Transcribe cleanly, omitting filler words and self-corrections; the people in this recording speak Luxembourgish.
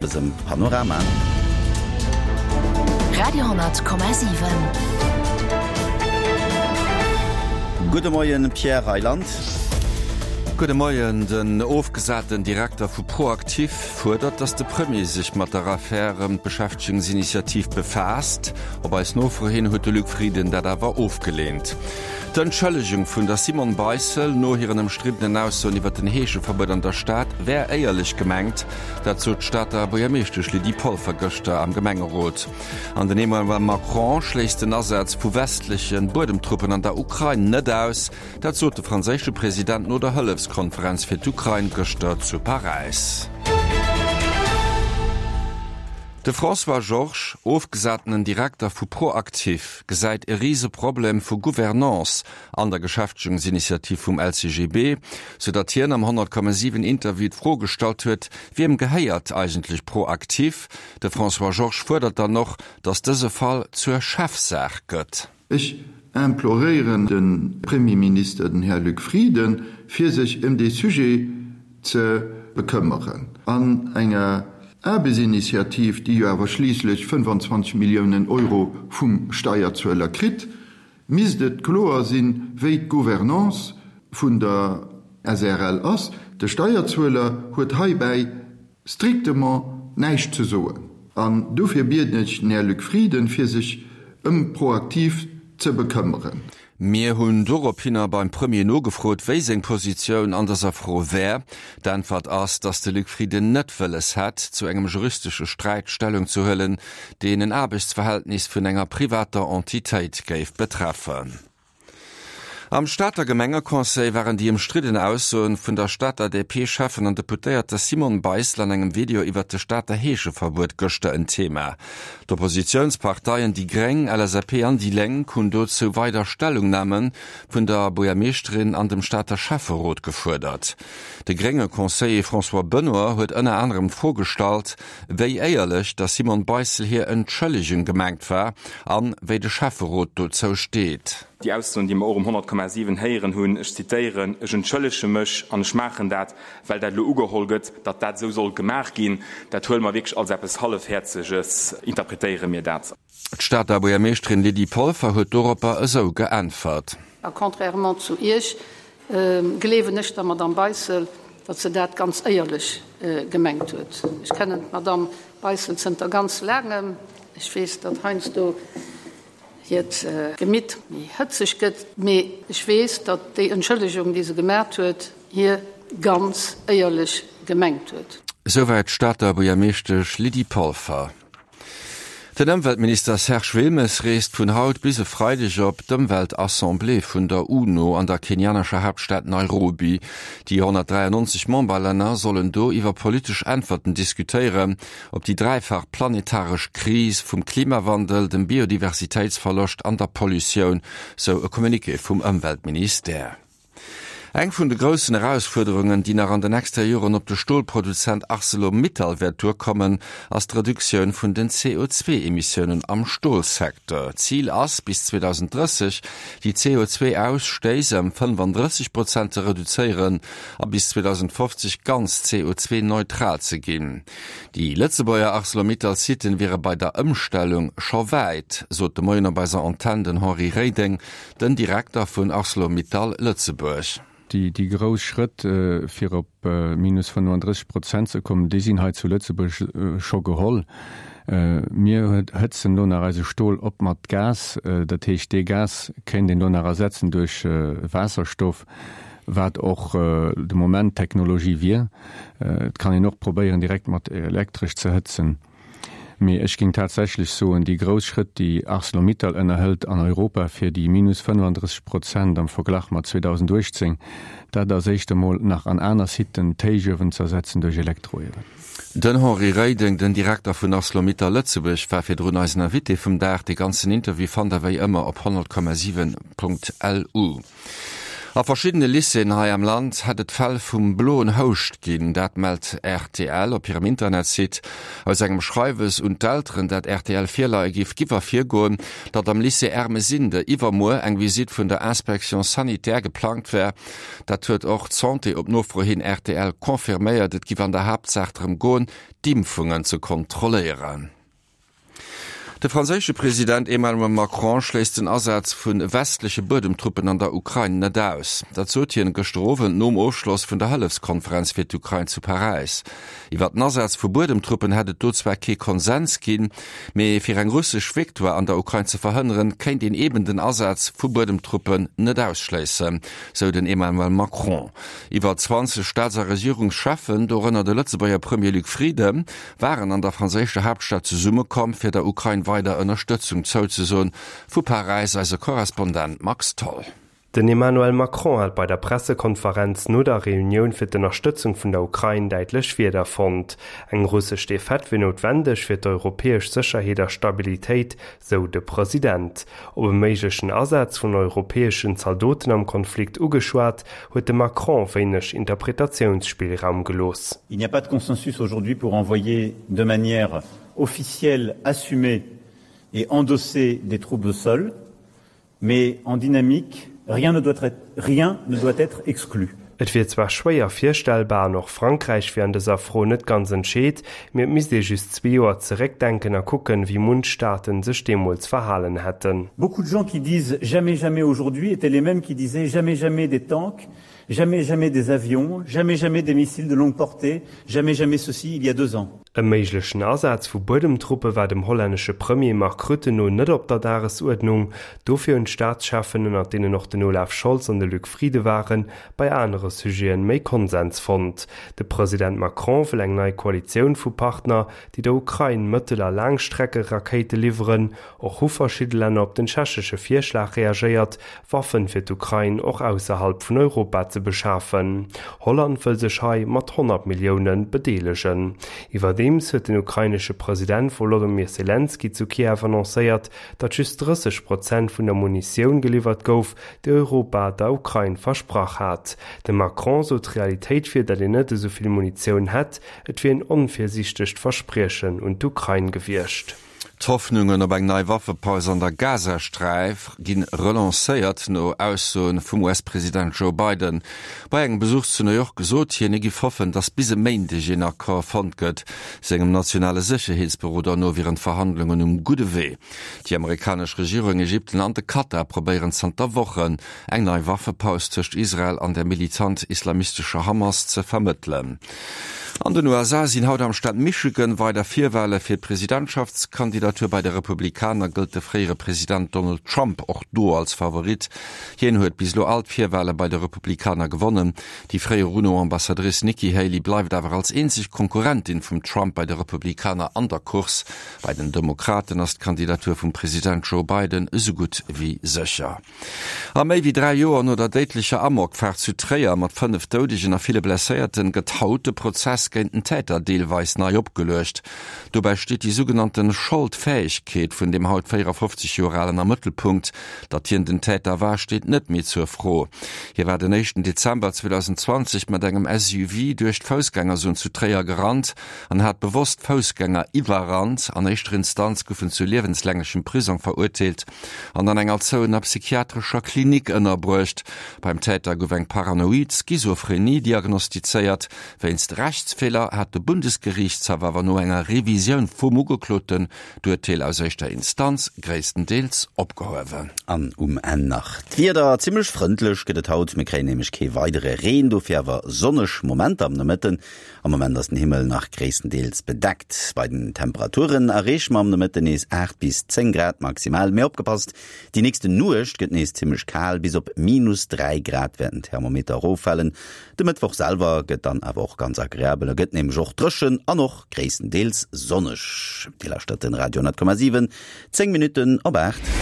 Dësem Panorama. Radio,7. Gudde Moien Pierre Reyland. Gudde Moien. Den ofgesaten Direkter vu ProActif fuerdert, datt de Premier sech mat der Affär ëm d'Beschäftegungsinitiativ befaasst. Op eis Nofro hin huet de Luc Frieden dat awer ofgeleent. D'Entschëllegung vun der Simone Beissel no hiren ëmstriddenen Aussoen iwwer den Heescheverbuet an der Stad wär éierlech gemengt. Dat sot d'Stater Buergermeeschtesch Lydie Polfer gëschter am Gemengerot. An den Emmanuel Macron schléisst den Asaz vu westleche Buedemtruppen an der Ukrain net aus. Dat sot de franséische President no der Hëllefskonferenz fir d'Ukrain gëschter zu Paräis. De François Georges, ofgesatenen Direkter vu ProActif, gesäit e Riseproblem vu Gouvernance an der Geschäftegungsinitiativ vum LCGB, sou datt hien am 100,7 Interview d'Fro gestallt huet, Wiem gehéiert eigentlech ProActif? De François Georges fuerdert dann och, datt dëse Fall zur Chefsaach gëtt. Ech imploréieren de Premierminister, den Här Luc Frieden, fir sech ëm dee Sujet ze bekëmmeren. An enger Aarbechtsinitiativ, déi jo awer schliisslech 25 Milliounen Euro vum Steierzueler kritt, misst et kloer sinn, wéi d'Gouvernance vun der SREL ass. De Steierzueler huet heibäi strictement näischt ze soen. An dofir bieden ech den Här Luc Frieden, fir sech ëm ProActif ze bekëmmeren. Mir hunn dorophinner beim Premier nogefrot, wéi seng Positioun an dëser Fro wär. D'Äntwert ass, datt de Luc Frieden net wëlles hätt, zu engem juristesche Sträit Stellung ze huelen, deen en Aarbechtsverhältnis vun enger privater Entitéit géif betreffen. Am Stater Gemengeconseil waren déi ëmstridden Aussoen vun der Stater DP-Schäffen an Deputéierter Simone Beissel an engem Video iwwert de Stater Heescheverbuet gëschter en Thema. D'Oppositiounsparteien déi Gréng, LSAP an déi Lénk hunn dozou weider Stellungname vun der Buergermeeschterin an dem Stater Schäfferot gefuerdert. De grénge Conseiller François Benoy huet ënner anerem d'Fro gestallt, wéi éierlech der Simone Beissel hir Entschëllegung gemengt war an wéi de Schäfferot dozou steet. Déi Aussoen, déi mer och um 100,7 héieren hunn, ech zitéieren, Ech entschëllege mech an ech maachen dat, well dat elo ugeholl gëtt, datt dat esou soll gemaach ginn, dat huele mer wierklech als eppes Hallefhäerzeges, interpretéiere mir dat. D'Stater Buergermeeschterin Lydie Polfer huet doropper esou geäntwert. A contrairement zu Iech gleewen ech der Madamm Beissel, datt se dat ganz éierlech gemengt huet. Ech kennen d'Madamm Beissel zënter ganz laangem. Ech weess, datt heiansdo hiert Gemitt méi hëtzeg gëtt, mee ech weess, datt déi Entschëllegung, déi se gemat huet, hir ganz éierlech gemengt huet. Souwäit d'Stater Buergermeeschtesch Lydie Polfer. Den Ëmweltminister Serge Wilmes reest vun haut bis e Freideg op d'Ëmweltassemblée vun der UNO an der kenianescher Haaptstad Nairobi. Déi 193 Memberlänner sollen do iwwer politesch Äntwerten diskutéieren op déi dräifach planetaresch Kris vum Klimawandel, dem Biodiversitéitsverloscht an der Pollutioun, sou e Communiqué vum Ëmweltministère. Eng vun de groussen Erausfuerderungen, déi nach an de nächster Joren op de Stolproduzent Arcelor Mittal wäert duerkommen, ass d'Reduktioun vun den CO2-Emissiounen am Stolsecteur. Zil ass, bis 2030 déi CO2-Ausstéiss ëm 35 Prozent ze reduzéieren a bis 2050 ganz CO2-neutral ze ginn. Déi Lëtzebuerger Arcelor Mittal-Siten wiere bei der Ëmstellung scho wäit, sot de Moien op eiser Antenn den Henri Reding, Den Direkter vun Arcelor-Mittal Lëtzebuerg. Déi grouss Schrëtt, fir op minus 35 Prozent ze kommen, déi sinn hei zu Lëtzebuerg scho geholl. Mir hëtzen elo nach eise Stol op mat Gas. Dat heescht, dee Gas kéint een elo nach ersetzen duerch Waasserstoff, wat och de Moment d'Technologie wier. Et kann een och probéieren, direkt mat Elektresch ze hëtzen. Mee ech géing tatsächlech soen, déi grouss Schrëtt, déi Arcelor-Mittal ënnerhëlt an Europa fir déi minus 35 Prozent am Verglach mat 2018, dat ass éischt emol nach an aner Siten d'Héichuewen z'ersetzen duerch Elektroiewen. Den Henri Reding, den Direkter vun Arcelor-Mittal Lëtzebuerg, war virdrun eisen Invité vum Dag. De ganzen Interview fannt der wéi ëmmer op 100,7.lu. A verschiddene Lycéeën hei am Land hätt et Fäll vum bloen Houscht ginn. Dat mellt rtl op hirem Internetsite. Aus engem Schreiwes un d'Elteren, dat rtl virleie giff, giff ervirgoen, datt am Lycée Ermesinde iwwermuer eng Visitt vun der Inspection sanitaire geplangt wär. Dat huet och d'Santé op Nofro hin rtl confirméiert. Et giff an der Haaptsaach drëm goen, d'Impfungen ze kontrolléieren. De franséische President Emmanuel Macron schléisst den Asaz vu westleche Buedemtruppen an der Ukrain net aus. Dat sot hien gëschter Owend nom Ofschloss vun der Hëllefskonferenz fir d'Ukrain zu Paräis. Iwwer den Asaz vu Buedemtruppen hätt et do zwar kee Konsens ginn, mee fir eng russesch Victoire an der Ukrain ze verhënneren, kéint een eben den Asaz vu Buedemtruppen net ausschléissen, sou den Emmanuel Macron. Iwwer 20 Staats a Regierungscheffen, dorënner de Lëtzebuerger Premier Luc Frieden, waren an der franséischer Haaptstad zesummekomm, fir der Ukrain weider Ënnerstëtzung zouzesoen. Vu Paräis eise Korrespondent Max Tholl. Den Emmanuel Macron hat bei der Pressekonferenz no der Reunioun fir d'Ënnerstëtzung vun der Ukrain däitlech Wierder fonnt. Eng russesch Defaite wier noutwendeg fir d'europäesch Sécherheet a Stabilitéit, sou de President. Op e méiglechen Asaz vun europäeschen Zaldoten am Konflikt ugeschwat, huet de Macron wéineg Interpretatiounsspillraum gelooss. Il n'y a pas de consensus aujourd'hui pour envoyer de manière officielle, assumée et endossée des troupes au sol, mais en dynamique, rien ne doit être, rien ne doit être exclu. Et wier zwar schwéier virstellbar an och Frankräich wier an dëser Fro net ganz entscheet, mee et misst ee just zwee Joer zeréckdenken a kucken, wéi munch Staaten sech deemools verhalen hätten. Beaucoup de gens qui disent jamais jamais aujourd'hui étaient les mêmes qui disaient jamais jamais des tanks, jamais jamais des avions, jamais jamais des missiles de longue portée, jamais jamais ceci il y a deux ans. E méiglechen Asaz vu Buedemtruppe war dem hollännesche Premier Mark Rutte no net op der Dagesuerdnung. Dofir hunn d'Staatscheffen, ënnert deenen och den Olaf Scholz an de Luc Frieden waren, bei anere Sujeten méi Konsens fonnt. De President Macron wëll eng nei Koalitioun vu Partner, déi der Ukrain Mëttel a Laangstreckerakéite liwweren. Och hu verschidde Länner op den tschechesche Virschlag reagéiert, Waffen fir d'Ukrain och ausserhalb vun Europa ze beschafen. Holland wëll sech hei mat 100 Millioune bedeelegen. Iwwerdeems huet den ukrainesche President Wolodymyr Selenskyj zu Kiew annoncéiert, datt just 30 Prozent vun der Munitioun geliwwert gouf, déi Europa der Ukrain versprach hat. De Macron sot, d'Realitéit wier, datt een net esou vill Munitioun hätt. Et wier een onvirsiichtegt Verspriechen un d'Ukrain gewiescht. D'Hoffnungen op eng nei Waffepaus an der Gazasträif gi relancéiert, no Aussoe vum US-President Joe Biden. Bei engem Besuch zu New York gesot hien, hie giff hoffen, datt bis e Méindeg een Accord fonnt gëtt. Sengem nationale Sécherheetsberoder no wieren d'Verhandlungen um gudde Wee. Déi amerikanesch Regierung, Ägypten an de Katar probéieren zanter Wochen, eng nei Waffepaus tëscht Israel an der militant-islamistescher Hamas ze vermëttelen. An den USA sinn haut am Staat Michigan weider Virwale fir d'Presidentschaftskandidatur. Bei de Republikaner gëllt de fréiere President Donald Trump och do als Favorit. Hien huet bis elo all d'Virwale bei de Republikaner gewonnen. Déi fréier UNO-Ambassadrice Nikki Haley bleift awer als eenzeg Konkurrentin vum Trump bei de Republikaner an der Course. Bei den Demokraten ass d'Kandidatur vum President Joe Biden esou gutt wéi sécher. A méi wéi 3 Joer no der déidlecher Amokfaart zu Tréier mat 5 Doudegen a ville Blesséierten gëtt haut de Prozess géint den Täter deelweis nei opgeluecht. Dobäi steet déi sougenannte Scholdfäegkeet vun dem haut 54 Joer Alen am Mëttelpunkt. Datt hien den Täter war, steet net méi zur Fro. Hie war den éischten Dezember 2020 mat engem SUV duerch d'Foussgängerzon zu Tréier gerannt an hat bewosst Foussgänger iwwerrannt. An éischter Instanz gouf en zu liewenslänglechem Prisong verurteelt. an an enger zouener psychiatrescher Klinik ënnerbruecht. Beim Täter gouf eng paranoid Schizophrenie diagnostizéiert. Wéinst Rechtsfeeler hat de Bundesgeriichtshaff awer no enger Revisioun vum Ugekloten d'Urteel aus éischter Instanz gréisstendeels opgehuewen. An um Enn nach d'Wieder, Zimmlech frëndlech gëtt et haut, mir kréien nämlech kee weidere Reen, dofir awer sonneg Momenter am Nomëtten. Am Moment ass den Himmel nach gréisstendeels bedeckt. Bei den Temperaturen erreeche mer am Nomëtten nees 8 bis 10 Grad maximal. Mee opgepasst, déi nächste Nuecht gëtt nees zimmlech kal, bis op minus 3 Grad wäerten d'Thermometer eroffalen. De Mëttwoch selwer gëtt dann awer och ganz agreabel, e gëtt nämlech och dréchen an och gréisstendeels sonneg. Dir lauschtert den Radio 10,7, 10 Minutten op 8.